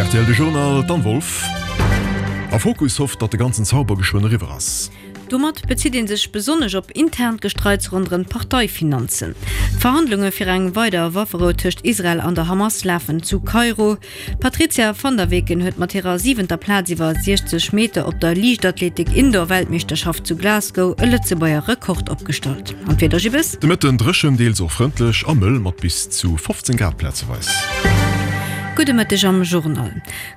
Rtl De Journal, d'Anne Wolff. A Fokus hofft, datt de ganzen Zauber geschwënn eriwwer ass. Domat bezitt ee sech besonnesch op internt Gestreits ronderëm d'Parteifinanzen. D'Verhandlunge fir eng weider Wafferou tëscht Israel an der Hamas lafen zu Kairo. D'Patrizia van der Weken huet mat hirer siwenter Plaz iwwer 60 Meter op der Liichtathletik-Indoor-Weltmeeschterschaft zu Glasgow e Lëtzebuerger Rekord opgestallt. An d'Wieder, Gibbes? De Mëtten dréchen, deels och frëndlech a mëll mat bis zu 15 Grad plazeweis. Gudde Mëtteg am Journal.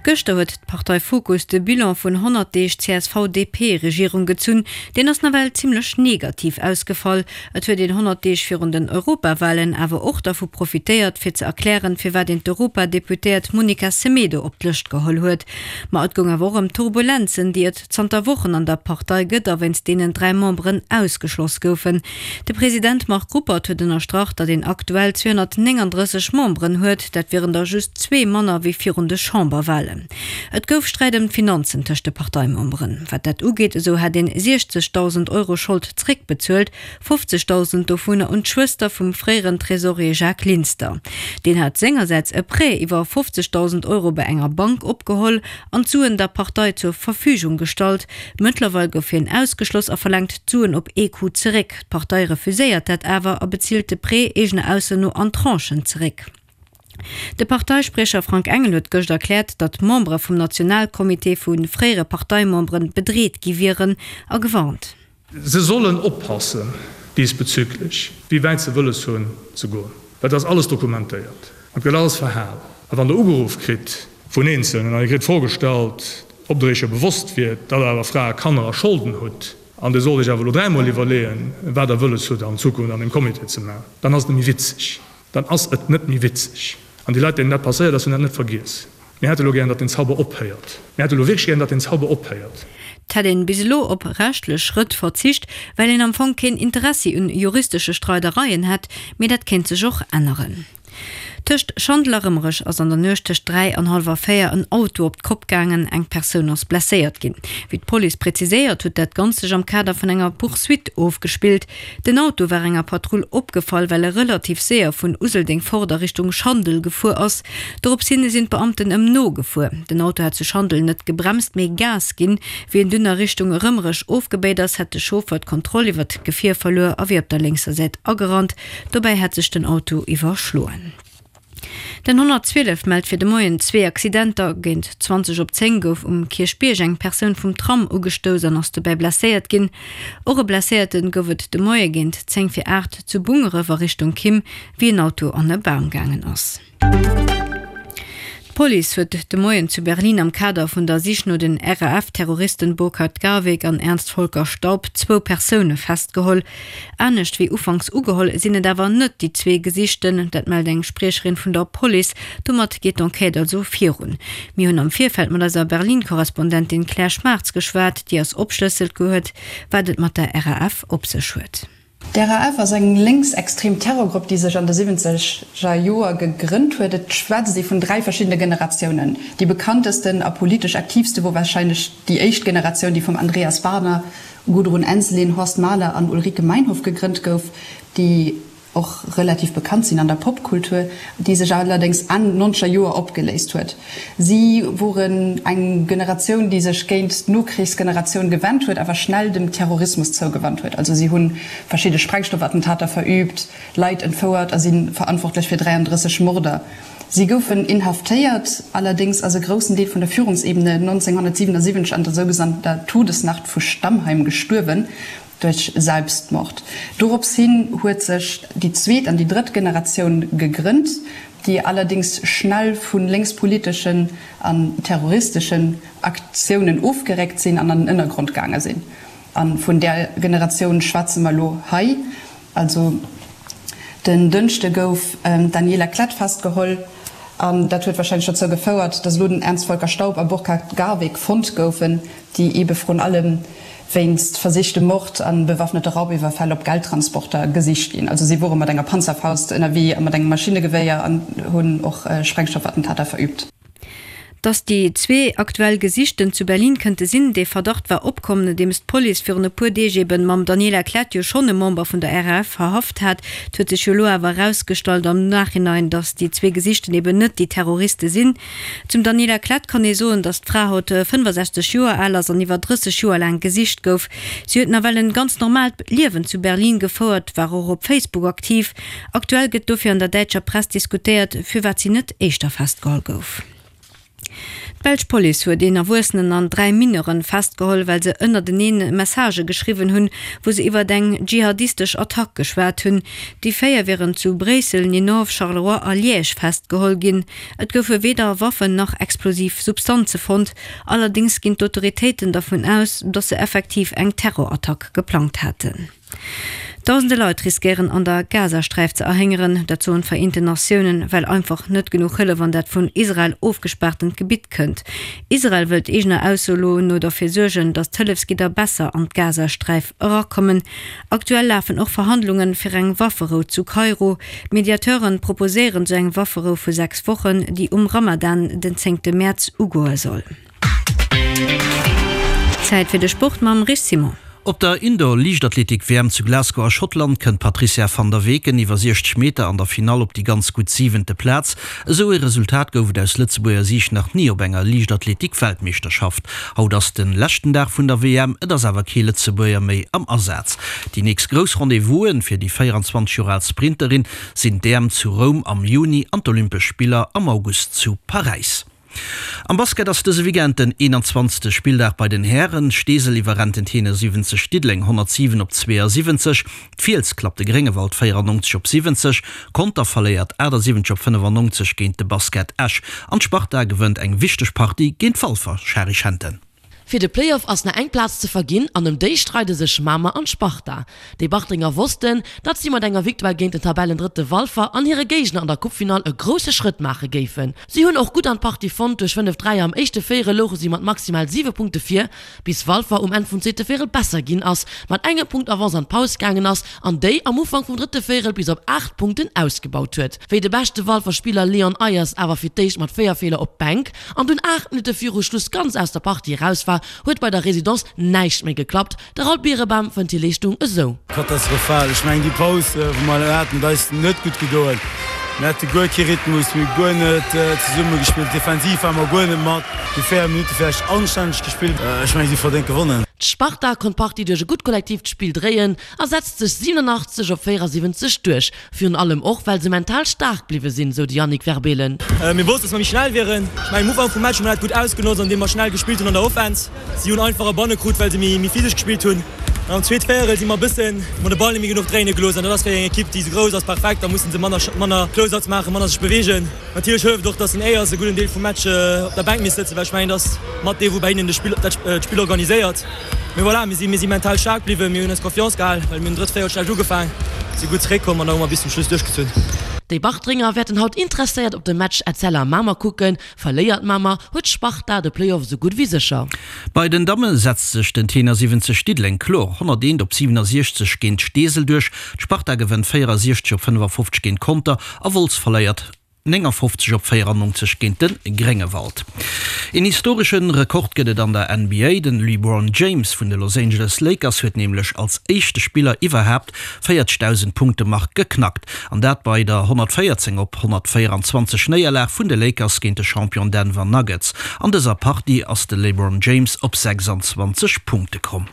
Gëschter huet d'Partei Fokus de Bilan vun 100 Deeg CSV-DP-Regierung gezunn. Deen ass nawell zimmlech negativ ausgefall. Et huet een 100 Deeg virun den Europawahlen awer och dervu profitéiert, fir ze erklären, firwat een d'Europadeputéiert Monica Semedo op d'Lëscht geholl huet. Ma et goung awer och ëm d'Turbulenzen, déi et zanter Wochen an der Partei gëtt a wéinst deenen 3 Memberen ausgeschloss goufen. De President Marc Ruppert huet ënnerstrach, datt een aktuell 239 Memberen huet, dat wieren der just zwee manner wéi virun de Chamberwahlen. Et gouf Sträit ëm d'Finanzen tëscht de Parteimemberen. Wat dat ugeet, esou hätt een 60.000 Euro Schold zréckbezuelt, 50.000 dovunner un d'Schwëster vum fréieren Tresorier Jacques Linster. Deen hat sengersäits e Prêt iwwer 50.000 Euro bei enger Bank opgeholl an d'Suen der Partei zur Verfügung gestallt. Mëttlerweil gouf hien ausgeschloss a verlaangt d'Suen op ee Coup zeréck. D'Partei refuséiert dat awer a bezilt de Prêt eegener Ausso no an Tranchen zeréck. De Parteispriecher Frank Engel huet gëscht erkläert, datt Membere vum Nationalcomité vu fréiere Parteimembere bedreet gi wieren a gewarnt. Se sollen oppassen diesbezüglich, wéi wäit se wëlles hunn ze goen, well et ass alles dokumentéiert an et gëtt alles verhal. A wann Der ugeruff kritt vun Eenzelnen an Dir kritt d'Fro gestallt, ob Der Iech jo bewosst wiert, datt Der awer Frae, Kanner a Scholden hutt an Dir sollt Iech awer elo dräimol iwwerleeën, wat Der wëlles hutt an Zukunft an deem Comité ze maachen, dann ass et net méi witzeg. Dann ass et net méi witzeg. An déi Leit, deenen dat passéiert ass, hunn dat net vergiess. Mir hätte elo gären, datt den Zauber ophéiert. Mir hätte elo wierklech gären, datt den Zauber ophéiert. Et hätt een bis elo op rechtlech Schrëtt verzicht, well een am Fong keen Interessi un juristesche Streidereien hätt, mee dat kéint sech och änneren. Tëscht Schandel a Rëmerech ass an der Nuecht tëscht 3 an hallwer 4 en Auto op d'Kopp gaangen, eng Persoun ass blesséiert ginn. Wéi d'Police präziséiert, huet dat Ganzt sech am Kader vun enger Poursuite ofgespillt. Den Auto war enger Patrull opgefall, well e relativ séier vun Useldeng fort a Richtung Schandel gefuer ass. Dorops hin sinn d'Beamten ëm nogefuer. Den Auto hat zu Schandel net gebremst, mee Gas ginn. Wéi en dunn a Richtung Rëmerech ofgebéit ass, hätt de Chauffer d'Kontroll iwwert d'Gefier verluer a wier op der lénkser Säit agerannt. Dobäi hätt sech den Auto iwwerschloen. Den 112 mellt fir de Moien zwee Accidenter. Géint 20 op 10 gouf um Kierchbierg eng Persoun vum Tram ugestouss an ass dobäi blesséiert ginn. Och e Blesséierte gouf et de Moie géint 10 vir 8 zu Bungeref a Richtung Kimm, wéi en Auto an e Bam gaangen ass. D'Police huet de Moien zu Berlin am Kader vun der Sich no den RAF-Terroristen Burkhard Garweg an Ernst-Volker Staub zwou Persoune festgeholl. Anescht wéi ufanks ugeholl, sinn et awer net déi zwee Gesichten. Dat mellt eng Spriecherin vun der Police. Domat geet d'Enquête also virun. Mir hunn am Virfeld mat eiser Berlin-Korrespondentin Claire Schmartz geschwat, déi eis opschlësselt huet, wat et mat der RAF op sech huet. D'RAF ass eng lénksextrem Terrorgrupp, déi sech an de siwwenzeger Joer gegrënnt huet. Et schwätzt ee vun 3 verschiddene Generatiounen. Déi bekanntesten a politesch aktiivste wor warscheinlech déi éischt Generatioun, déi vum Andreas Baader Gudrun Ensslin, Horst Mahler an Ulrike Meinhof gegrënnt gouf, déi och relativ bekannt sinn an der Popkultur, déi sech allerdéngs Enn nonzeger Joer opgeléist huet. Si woren eng Generatioun, déi sech géint d'Nokrichsgeneratioun gewennt huet, awer schnell dem Terrorismus zougewannt huet. Also si hu verschidde Sprengstoffattentater verüübt, Leit entfouert a si verantwortlech fir 33 Morder. Si goufen inhaftéiert, allerdéngs ass e groussen Deel vun der Führungsebene 1977 an der sougenannter Todesnacht vu Stammheim gestuerwen, duerch Selbstmord. Dorops hin huet sech déi zweet an déi drëtt Generatioun gegrënnt, déi allerdéngs schnell vu lénkspoliteschen an terroristeschen Aktiounen ofgeréckt sinn an an den Ënnergrond gaange sinn. A vun där Generatioun schwätze mer elo hei. Also den Dënschde gouf d'Daniela Klette festgeholl an dat huet warscheinlech dozou gefouert, datt elo den Ernst-Volker Staub a Burkhard Garweg fonnt goufen, déi eebe vrun allem wéinst versichtem Mord a bewaffnete Raubiwwerfäll op Geldtransporter gesicht ginn. Also si wore mat enger Panzerfaust ënnerwee a mat engem Maschinegewéier an hunn och Sprengstoffattentater verüübt. Dass déi zwee aktuell Gesichten zu Berlin kënnte sinn, dee Verdacht war opkomm, nodeems d'Police virun e puer Deeg eben mam Daniela Klette jo schonn e Member vun der RAF verhaft hat. Et huet sech jo elo awer erausgestallt am Nachhinein, dass déi zwee Gesichten eben net déi Terroriste sinn. Zum Daniela Klette kann ee soen, dass d'Fra haut 65 Joer al ass an iwwer 30 Joer laang gesicht gouf. Si huet nawell en ganz normaalt Liewen zu Berlin gefouert, war och op Facebook aktiv. Aktuell gëtt dofir an der däitscher Press diskutéiert, firwat si net éischter festgeholl gouf. D'belsch Police huet een Erwuessenen an 3 Mineuren festgeholl, well se ënnerteneen Messagë geschriwwen hunn, wou se iwwert eng dschihadistesch Attack geschwat hunn. Déi 4 wieren zu Bréissel, Ninove, Charleroi a Liège festgeholl ginn. Et goufe weder Waffen nach explosiv Substanze fonnt. Allerdéngs ginn d'Autoritéiten dervun aus, datt se effektiv eng Terrorattack geplangt haten. Dausende Leit riskéieren an der Gazasträif ze erhéngeren, dat soen d'Vereenten Natiounen, well einfach net genuch Hëllef an dat vun Israel ofgespaartent Gebitt kënnt. Israel wëllt eegener Ausso lo no derfir suergen, datt d'Hëllefsgidder besser an d'Gazasträif erakommen. Aktuell lafen och Verhandlunge fir eng Wafferou zu Kairo. D'Mediateuren proposéieren sou eng Wafferou vu 6 Wochen, déi um Ramadan den zéngte Mäerz ugoe soll. Zäit fir de Sport mam Rich Simon. Op der Indoor-Liichtathletik-WM zu Glasgow a Schottland kënnt d'Patrizia van der Weken iwwer 60 Meter an der Finall op déi ganz gutt siwente Plaz. Esou ee Resultat gouf et aus Lëtzebuerger Siicht nach ni op enger Liichtathletik-Weltmeeschterschaft. Haut ass de leschten Dag vun der WM, et ass awer kee Lëtzebuerger méi am Asaz. Déi nächst grouss Rendez-vous'en fir déi 24 Joer al Sprinterin sinn d'EM zu Roum am Juni an d'Olympesch Spiller am August zu Paräis. Am Basket ass dëse Weekend den 21. Spilldag bei den Hären. Steesel iwwerrennt den Tenor 70 Diddeleng 107 op 72, d'Fiels klappt de Gréngewald 94 op 70, Conter verléiert 78 op 95 géint de Basket Esch an d'Sparta gewënnt eng wichteg Partie géint Walfer. Shari Schenten. Fir de Playoff ass nach eng Plaz ze verginn an ëm déi streide sech Mamer an d'Sparta. Déi Bartrenger wossten, datt si mat enger Victoire géint den Tabellendrëtte Walfer an hire Géigner an der Coupefinall e grousse Schrëtt maache géifen. Si hunn och gutt an d'Partie fonnt, duerch 5 Dräier am éischte Véierel louche si mat maximal 7 Punkte vir, bis Walfer um Enn vum zweete Véierel besser ginn ass, mat engem Punkt Avance an d'Paus gaangen ass an déi am Ufank vum drëtte Véierel bis op 8 Punkten ausgebaut huet. Wéi de beschte Walfer Spiller Leon Ayers awer fir d'éischt mat 4 Feeler op d'Bänk an dunn 8 Minutte viru Schluss ganz aus der Partie eraus war, huet bei der Residence näischt méi geklappt. De Raoul Birebam fënnt hir Leeschtung esou. Katastrophal. Ech mengen déi Paus wou mer haten huet eis net gutt gedoen. Mir hate guer kee Rhythmus, mir hu guer net zesumme gespillt. Defensiv ware mer guer net mat. Déi 4 Minutte vläicht anstänneg gespillt. Ech mengen si hu verdéngt gewonnen. D'Sparta konnt d'Partie duerch e gutt kollektiivt Spill dréien a setzt sech 87 op 74 duerch. Virun allem och, well se mental staark bliwwe sinn, sou de Yannick Verbeelen. Mir wossten, dass mer méi schnell wieren. Ech mengen, um Ufank vum Match hu mer dat gutt ausgenotzt, andeem mer schnell gespillt hunn an der Offense. Si hunn einfach e Banne krut, well se méi physesch gespillt hunn. An am zweet Véierel si mer e bëssen, hu mer de Ball net méi genuch dréine gelooss. An dat ass fir eng Ekipp, déi esou grouss ass, perfekt. Da musse se manner, manner Closeouts maachen, manner sech beweegen. Natierlech hëlleft och, dass den Ayers e gudden Deel vum Match op der Bänk misst sëtzen, well ech mengen, dass mat dee wou bei hinnen de Spill, dat d'Spill organiséiert. Mee voilà, mir si, mir si mental staark bliwwen, mir hunn eis Confiance gehal, well mir hunn drëtt Véierel schlecht ugefaang, si gutt zeréckkomm an da hu mer bis zum Schluss duerchgezunn. Déi Bartrenger wäerten haut interesséiert op de Match Etzella Mamer kucken. Verléiert Mamer, huet Sparta de Playoff esou gutt wéi sécher. Bei den Damme setzt sech den Tenor 70 Diddeleng kloer 101 op 67 géint Steesel duerch. D'Sparta gewënnt 64 op 55 géint Conter a Wolz verléiert 59 op 94 géint de Gréngewald. Een historesche Rekord gëtt et an der NBA. Den LeBron James vun de Los Angeles Lakers huet nämlech als éischte Spiller iwwerhaapt 40.000 Punkte-Mark geknackt. An dat bei der 114 op 124 Néierlag vun de Lakers géint de Champion Denver Nuggets. An dëser Partie ass de LeBron James op 26 Punkte komm.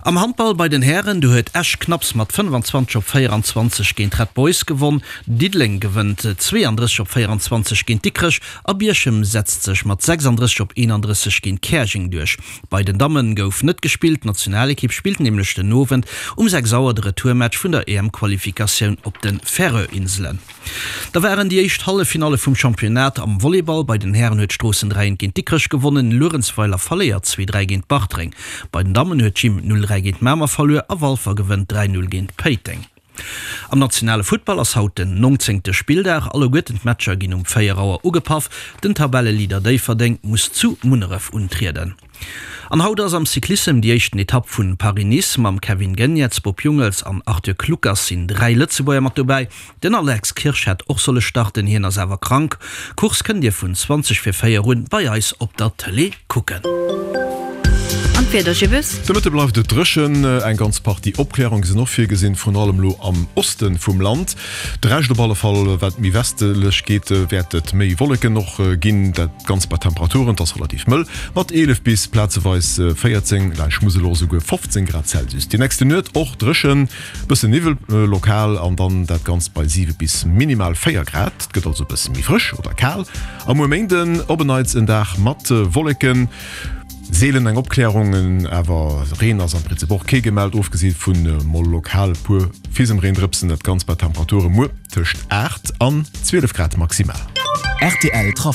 Am Handball bei den Hären, do huet Esch knapps mat 25 op 24 géint Red Boys gewonn. Diddeleng gewënnt 32 op 24 géint Dikrech a Bierchem setzt sech mat 36 op 31 géint Käerjeng duerch. Bei den Damme gouf net gespillt, d'Nationalekipp spillt nämlech den Owend um 6 Auer de Retourmatch vun der EM-Qualifikatioun op de Färöer-Inselen. Da waren déi éischt Halleffinalle vum Championnat am Volleyball. Bei den Hären huet Stroossen 3 1 géint Dikrech gewonnen, Luerenzweiler verléiert 2 3 géint Bartreng. Bei den Dammen huet d'Gym 0 3 géint Mamer verluer a Walfer gewënnt 3 0 géint Péiteng. Am nationale Futtball ass haut den nongzéngte Spilldag. Alleguerten d'Matcher ginn um 4 Auer ugepaff. Den Tabelleleader Déifferdeng muss zu Munneref untrieden. An haut ass am Cyclissem déi éischten Etapp vun Paris-Nice. Mam Kevin Geniets, Bob Jungels an Arthur Kluckers sinn 3 Lëtzebuerger mat dobäi. Den Alex Kirsch hätt och solle starten, hien ass awer krank. Course kënnt dir vun 20 vir 4 un bei eis op der Tëlee kucken. An d'Wieder, Gibbes? De Mëtte bleift et dréchen, eng ganz Partie Opklärunge sinn och virgesinn, vrun allem elo am Oste vum Land. De Rescht op alle Fall, wat méi westlech geet, wäert et méi Wolleken och ginn. Dat Ganzt bei Temperaturen, et ass relativ mëll, mat 11 bis plazeweis 14, laanscht Musel och esouguer 15 Grad Celsius. Déi nächste Nuet och dréchen, Bëssen Niwwel lokal an dann dat Ganzt bei 7 bis minimal 4 Grad. Et gëtt also e bësse méi frësch oder kal. A muer Méinden op en Neits en Dag mat Wolleken, seelen eng Opklärung, awer Reen ass am Prinzip och kee gemellt, ofgesi vu mol lokal e puer Fisemreendrëpsen. Dat Ganzt bei Temperature muer tëscht 8 an 12 Grad maximal. Rtl Trafic.